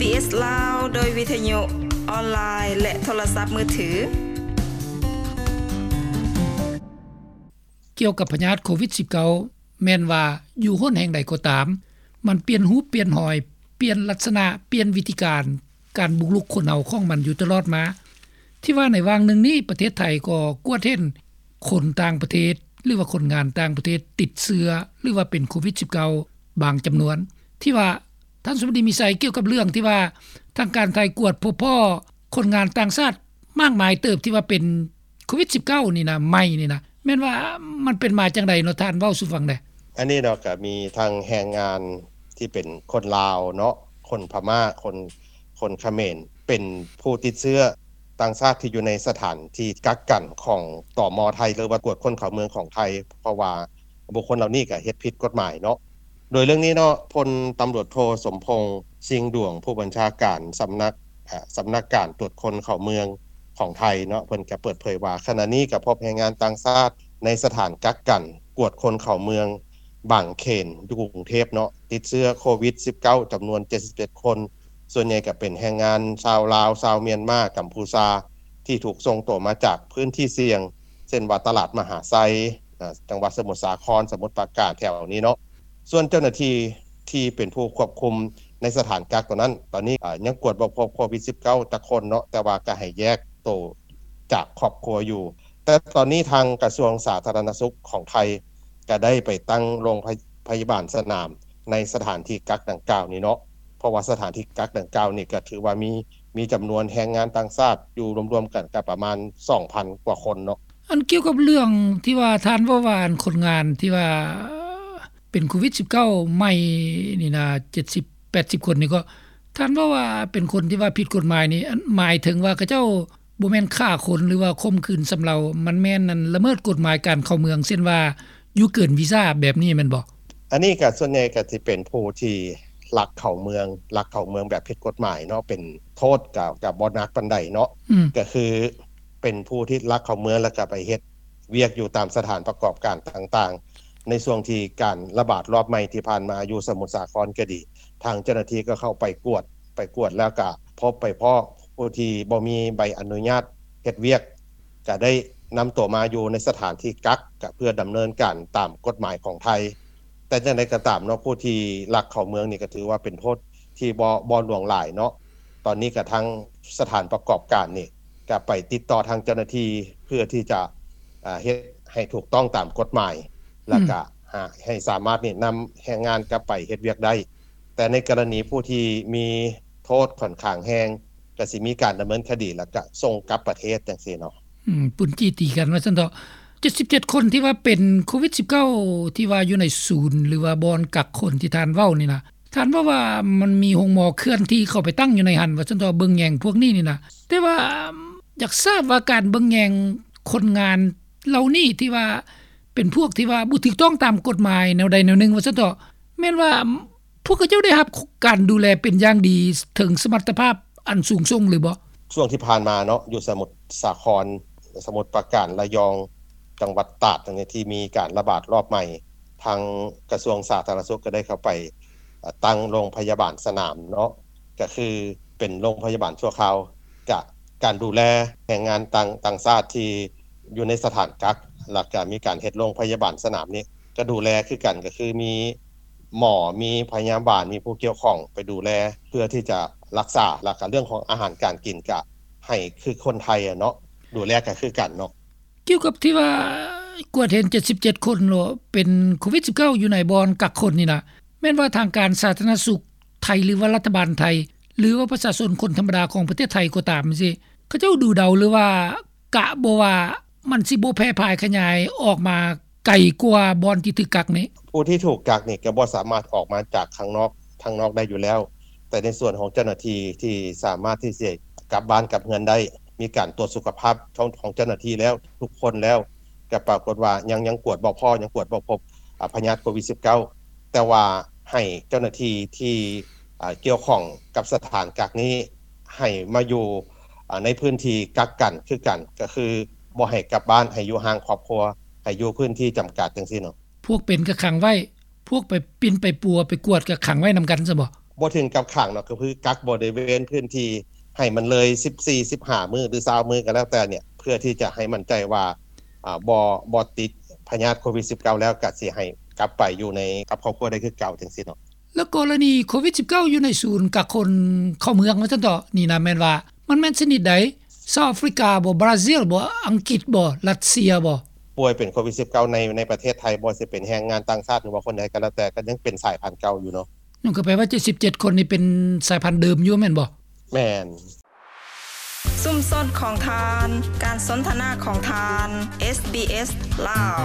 ເອສ ລາວ ໂດຍວິທະຍຸອອນລາຍ ແລະ ໂທລະສັບມືຖື. ກ່ຽວກັບພະຍາດໂຄວິດສິບເກົ້າ ແມ່ນວ່າຢູ່ຫົນແຫ່ງໃດກໍຕາມ ມັນປ່ຽນຮູບປ່ຽນຮອຍ, ປ່ຽນລັກສະນະ, ປ່ຽນວິທີການ ການບຸກລຸກຄົນເຮົາຂອງມັນຢູ່ຕະຫຼອດມາ. ທີ່ວ່າໃນຫວ່າງໜຶ່ງນີ້ ປະເທດໄທກໍກວດເຫັນຄົນຕ່າງປະເທດ ຫຼືວ່າຄົນງານຕ່າງປະເທດຕິດເຊື້ອ ຫຼືວ່າເປັນໂຄວິດສິບເກົ້າ ບາງຈຳນວນ ທີ່ວ່າ ທ່ານສຸມະດີ ມີໄຊ ກ່ຽວກັບເລື່ອງທີ່ວ່າທາງການໄທກວດພົບພໍ້ຄົນງານຕ່າງຊາດມາກມາຍເຕີບ ທີ່ວ່າເປັນໂຄວິດສິບເກົ້ານີ້ນະ ໃໝ່ນີ້ນະ ແມ່ນວ່າມັນເປັນມາຈັ່ງໃດເນາະ ທ່ານເວົ້າສູ່ຟັງແດ່? ອັນນີ້ເນາະ ກໍມີທັງແຮງງານທີ່ເປັນຄົນລາວເນາະ ຄົນພະມ້າ ຄົນ ຄົນຂະເໝນ ເປັນຜູ້ຕິດເຊື້ອຕ່າງຊາດທີ່ຢູ່ໃນສະຖານທີ່ກັກກັນຂອງ ຕມ ໄທ ຫຼືວ່າກວດຄົນເຂົ້າເມືອງຂອງໄທ ເພາະວ່າ ບຸກຄົນເຫຼົ່ານີ້ກໍເຮັດຜິດກົດໝາຍເນາະ. ໂດຍເລື່ອງນີ້ເນາະ ພົນຕຳຫຼວດໂທ ສົມພົງ ຊິງດວງ ຜູ້ບັນຊາການສຳນັກ ເອີ ສຳນັກການກວດຄົນເຂົ້າເມືອງຂອງໄທເນາະ ເພິ່ນກໍເປີດເຜີຍວ່າ ຂະນະນີ້ກໍພົບແຮງງານຕ່າງຊາດໃນສະຖານກັກກັນກວດຄົນເຂົ້າເມືອງບາງເຂນ ຢູ່ກຸງເທບເນາະ ຕິດເຊື້ອໂຄວິດສິບເກົ້າ ຈຳນວນເຈັດສິບເຈັດຄົນ ສ່ວນໃຫຍ່ກໍເປັນແຮງງານຊາວລາວ, ຊາວມຽນມາ, ກຳພູຊາ ທີ່ຖືກສົ່ງຕົວມາຈາກພື້ນທີ່ສ່ຽງ ເຊັ່ນວ່າຕະຫຼາດມະຫາໄຊ ອາ ຈັງຫວັດສະໝຸດສາຄອນ, ສະໝຸດປາການ ແຖວນີ້ເນາະ. ສ່ວນເຈົ້າໜ້າທີ່ທີ່ເປັນຜູ້ຄວບຄຸມໃນສະຖານກັກຕົວນັ້ນ ຕອນນີ້ ອາ ຍັງກວດບໍ່ພົບໂຄວິດສິບເກົ້າຈັກຄົນເນາະ ແຕ່ວ່າກໍໃຫ້ແຍກໂຕຈາກຄອບຄົວຢູ່. ແຕ່ຕອນນີ້ທາງກະຊວງສາທາລະນະສຸກຂອງໄທ ກໍໄດ້ໄປຕັ້ງໂຮງພະ ພະຍາບານສະໜາມໃນສະຖານທີ່ກັກດັ່ງກ່າວນີ້ເນາະ ເພາະວ່າສະຖານທີ່ກັກດັ່ງກ່າວນີ້ກໍຖືວ່າມີ ມີຈຳນວນແຮງງານຕ່າງຊາດຢູ່ລວມໆກັນກໍປະມານສອງພັນກວ່າຄົນເນາະ. ອັນກ່ຽວກັບເລື່ອງທີ່ວ່າທ່ານເວົ້າວ່າ ອັນຄົນງານທີ່ວ່າເປັນໂຄວິດສິບເກົ້າໃໝ່ນີ້ນະ ເຈັດສິບແປດສິບຄົນນີ້ ກໍທ່ານເວົ້າວ່າເປັນຄົນທີ່ວ່າຜິດກົດໝາຍນີ້ ອັນໝາຍເຖິງວ່າເຂົາເຈົ້າ ບໍ່ແມ່ນຂ້າຄົນ ຫຼືວ່າຂົ່ມຂືນຊຳເລົາ ມັນແມ່ນ ອັນ ລະເມີດກົດໝາຍການເຂົ້າເມືອງ ເຊັ່ນວ່າຢູ່ເກີນວີຊາແບບນີ້ແມ່ນບໍ່? ອັນນີ້ກໍສ່ວນໃຫຍ່ກໍຊິເປັນຜູ້ທີ່ລັກເຂົ້າເມືອງ ລັກເຂົ້າເມືອງແບບຜິດກົດໝາຍເນາະ ເປັນໂທດກໍ ກໍບໍ່ໜັກປານໃດເນາະ ອືມ ກໍຄືເປັນຜູ້ທີ່ລັກເຂົ້າເມືອງ ແລ້ວກໍໄປເຮັດວຽກຢູ່ຕາມສະຖານປະກອບການຕ່າງໆ. ໃນຊ່ວງທີ່ການລະບາດລອບໃໝ່ທີ່ຜ່ານມາຢູ່ສະໝຸດສາຄອນກໍດີ ທາງເຈົ້າໜ້າທີ່ກໍເຂົ້າໄປກວດ ໄປກວດແລ້ວກະພົບໄປພໍ້ຜູ້ທີ່ບໍ່ມີໃບອະນຸຍາດເຮັດວຽກ ກະໄດ້ນຳຕົວມາຢູ່ໃນສະຖານທີ່ກັກ ກະເພື່ອດຳເນີນການຕາມກົດໝາຍຂອງໄທ. ແຕ່ຈັ່ງໃດກໍຕາມເນາະ ຜູ້ທີ່ລັກເຂົ້າເມືອງນີ້ກະຖືວ່າເປັນໂທດທີ່ບໍ່ ບໍ່ຫຼວງຫຼາຍເນາະ. ຕອນນີ້ກະທາງສະຖານປະກອບການນີ້ກະໄປຕິດຕໍ່ທາງເຈົ້າໜ້າທີ່ ເພື່ອທີ່ຈະ ອາ ເຮັດໃຫ້ຖືກຕ້ອງຕາມກົດໝາຍ ແລ້ວກະ ອືມ ຫາ ໃຫ້ສາມາດນີ້ນຳແຮງງານກັບໄປເຮັດວຽກໄດ້. ແຕ່ໃນກໍລະນີຜູ້ທີ່ມີໂທດຂ້ອນຂ້າງແຮງ ກໍຊິມີການດຳເນີນຄະດີ ແລ້ວກະສົ່ງກັບປະເທດຈັ່ງຊີ້ເນາະ. ອືມ ປຸ້ນຈີ່ຕີກັນວ່າຊັ້ນເຖາະ. ເຈັດສິບເຈັດຄົນທີ່ວ່າເປັນໂຄວິດສິບເກົ້າ ທີ່ວ່າຢູ່ໃນສູນ ຫຼືວ່າບ່ອນກັກຄົນທີ່ທ່ານເວົ້ານີ້ນະ ທ່ານເວົ້າວ່າມັນມີໂຮງໝໍເຄື່ອນທີ່ເຂົ້າໄປຕັ້ງຢູ່ໃນຫັ້ນວ່າຊັ້ນເຖາະ ເບິ່ງແຍງພວກນີ້ນີ້ນະ. ແຕ່ວ່າຢາກຊາບວ່າການເບິ່ງແຍງຄົນງານເຫຼົ່ານີ້ ທີ່ວ່າເປັນພວກທີ່ວ່າບໍ່ຖືກຕ້ອງຕາມກົດໝາຍແນວໃດແນວໜຶ່ງວ່າຊັ້ນເຖາະ ແມ່ນວ່າ ພວກເຂົາເຈົ້າໄດ້ຮັບການດູແລເປັນຢ່າງດີເຖິງສະມັດຕະພາບອັນສູງສົ່ງຫຼືບໍ່? ຊ່ວງທີ່ຜ່ານມາເນາະ ຢູ່ສະໝຸດສາຄອນ, ສະໝຸດປາການ, ລະຍອງ, ຈັງຫວັດຕາດ ທີ່ມີການລະບາດລອບໃໝ່, ທາງກະຊວງສາທາລະນະສຸກກໍໄດ້ເຂົ້າໄປ ເອີ ຕັ້ງໂຮງພະຍາບານສະໜາມເນາະ, ກໍຄືເປັນໂຮງພະຍາບານຊົ່ວຄາວ. ກະການດູແລແຮງງານຕ່າງ ຕ່າງຊາດທີ່ຢູ່ໃນສະຖານກັກ ແລ້ວກະມີການເຮັດໂຮງພະຍາບານສະໜາມນີ້ ກະດູແລຄືກັນ ກະຄືມີໝໍ ມີພະຍາບານ ມີຜູ້ກ່ຽວຂ້ອງໄປດູແລ ເພື່ອທີ່ຈະລັກສາ ແລ້ວກະເລື່ອງຂອງອາຫານການກິນກະໃຫ້ຄືຄົນໄທຫັ້ນເນາະ ດູແລກະຄືກັນເນາະ. ກ່ຽວກັບທີ່ວ່າກວດເຫັນເຈັດສິບເຈັດຄົນເນາະ ເປັນໂຄວິດສິບເກົ້າ ຢູ່ໃນບ່ອນກັກຄົນນີ້ນະ ແມ່ນວ່າທາງການສາທາລະນະສຸກໄທ ຫຼືວ່າລັດຖະບານໄທ ຫຼືວ່າປະຊາຊົນຄົນທຳມະດາຂອງປະເທດໄທກໍຕາມຊີ້ ເຂົາເຈົ້າດູເດົາ ຫຼືວ່າກະບໍ່ວ່າມັນຊິບໍ່ແຜ່ພາຍຂະຫຍາຍອອກມາໄກກວ່າບ່ອນທີ່ຖືກກັກນີ້? ຜູ້ທີ່ຖືກກັກນີ້ກໍບໍ່ສາມາດອອກມາຈາກຂ້າງນອກ ທາງນອກໄດ້ຢູ່ແລ້ວ, ແຕ່ໃນສ່ວນຂອງເຈົ້າໜ້າທີ່ທີ່ສາມາດທີ່ຊິກັບບ້ານກັບເຮືອນໄດ້ ມີການກວດສຸຂະພາບຂອງ ຂອງເຈົ້າໜ້າທີ່ແລ້ວ ທຸກຄົນແລ້ວ ກໍປາກົດວ່າຍັງ ຍັງກວດບໍ່ພໍ້ ຍັງກວດບໍ່ພົບ ອາ ພະຍາດໂຄວິດສິບເກົ້າ ແຕ່ວ່າໃຫ້ເຈົ້າໜ້າທີ່ທີ່ ອາ ກ່ຽວຂ້ອງກັບສະຖານກັກນີ້ ໃຫ້ມາຢູ່ ອາ ໃນພື້ນທີ່ກັກກັນຄືກັນ ກໍຄືບໍ່ໃຫ້ກັບບ້ານ ໃຫ້ຢູ່ຫ່າງຄອບຄົວ ໃຫ້ຢູ່ພື້ນທີ່ຈຳກັດຈັ່ງຊີ້ເນາະ. ພວກເປັນກໍຂັງໄວ້ ພວກໄປປິ່ນໄປປົວໄປກວດກໍຂັງໄວ້ນຳກັນຊະບໍ? ບໍ່ເຖິງກັບຂັງເນາະ ກໍຄືກັກບໍລິເວນພື້ນທີ່ໃຫ້ມັນເລີຍສິບສີ່ ສິບຫ້າມື້ ຫຼື ຊາວມື້ກໍແລ້ວແຕ່ເນ່ຍ ເພື່ອທີ່ຈະໃຫ້ໝັ້ນໃຈວ່າ ອາ ບໍ່ ບໍ່ຕິດພະຍາດໂຄວິດ-19 ແລ້ວ ກໍຊິໃຫ້ກັບໄປຢູ່ໃນ ກັບຄອບຄົວໄດ້ຄືເກົ່າ ຈັ່ງຊີ້ເນາະ. ແລ້ວກໍລະນີໂຄວິດ-19 ຢູ່ໃນສູນກັກຄົນເຂົ້າເມືອງວ່າຊັ້ນເຖາະ ນີ້ນະ ແມ່ນວ່າມັນແມ່ນຊະນິດໃດ? ເຊົາອາຟຣິກາບໍ່? ບຣາຊິລບໍ່? ອັງກິດບໍ່? ຣັດເຊຍບໍ່? ປ່ວຍເປັນໂຄວິດ-19 ໃນ ໃນປະເທດໄທ ບໍ່ວ່າຊິເປັນແຮງງານຕ່າງຊາດ ຫຼືວ່າຄົນໃດກໍແລ້ວແຕ່ ກໍຍັງເປັນສາຍພັນເກົ່າຢູ່ເນາະ. ນັ້ນກໍແປວ່າ ເຈັດສິບເຈັດຄົນນີ້ເປັນສາຍພັນເດີມຢູ່ແມ່ນບໍ່? ແມ່ນ. ຊຸມຊົນຂອງທ່ານ ການສົນທະນາຂອງທ່ານ ເອສບີເອສ ລາວ.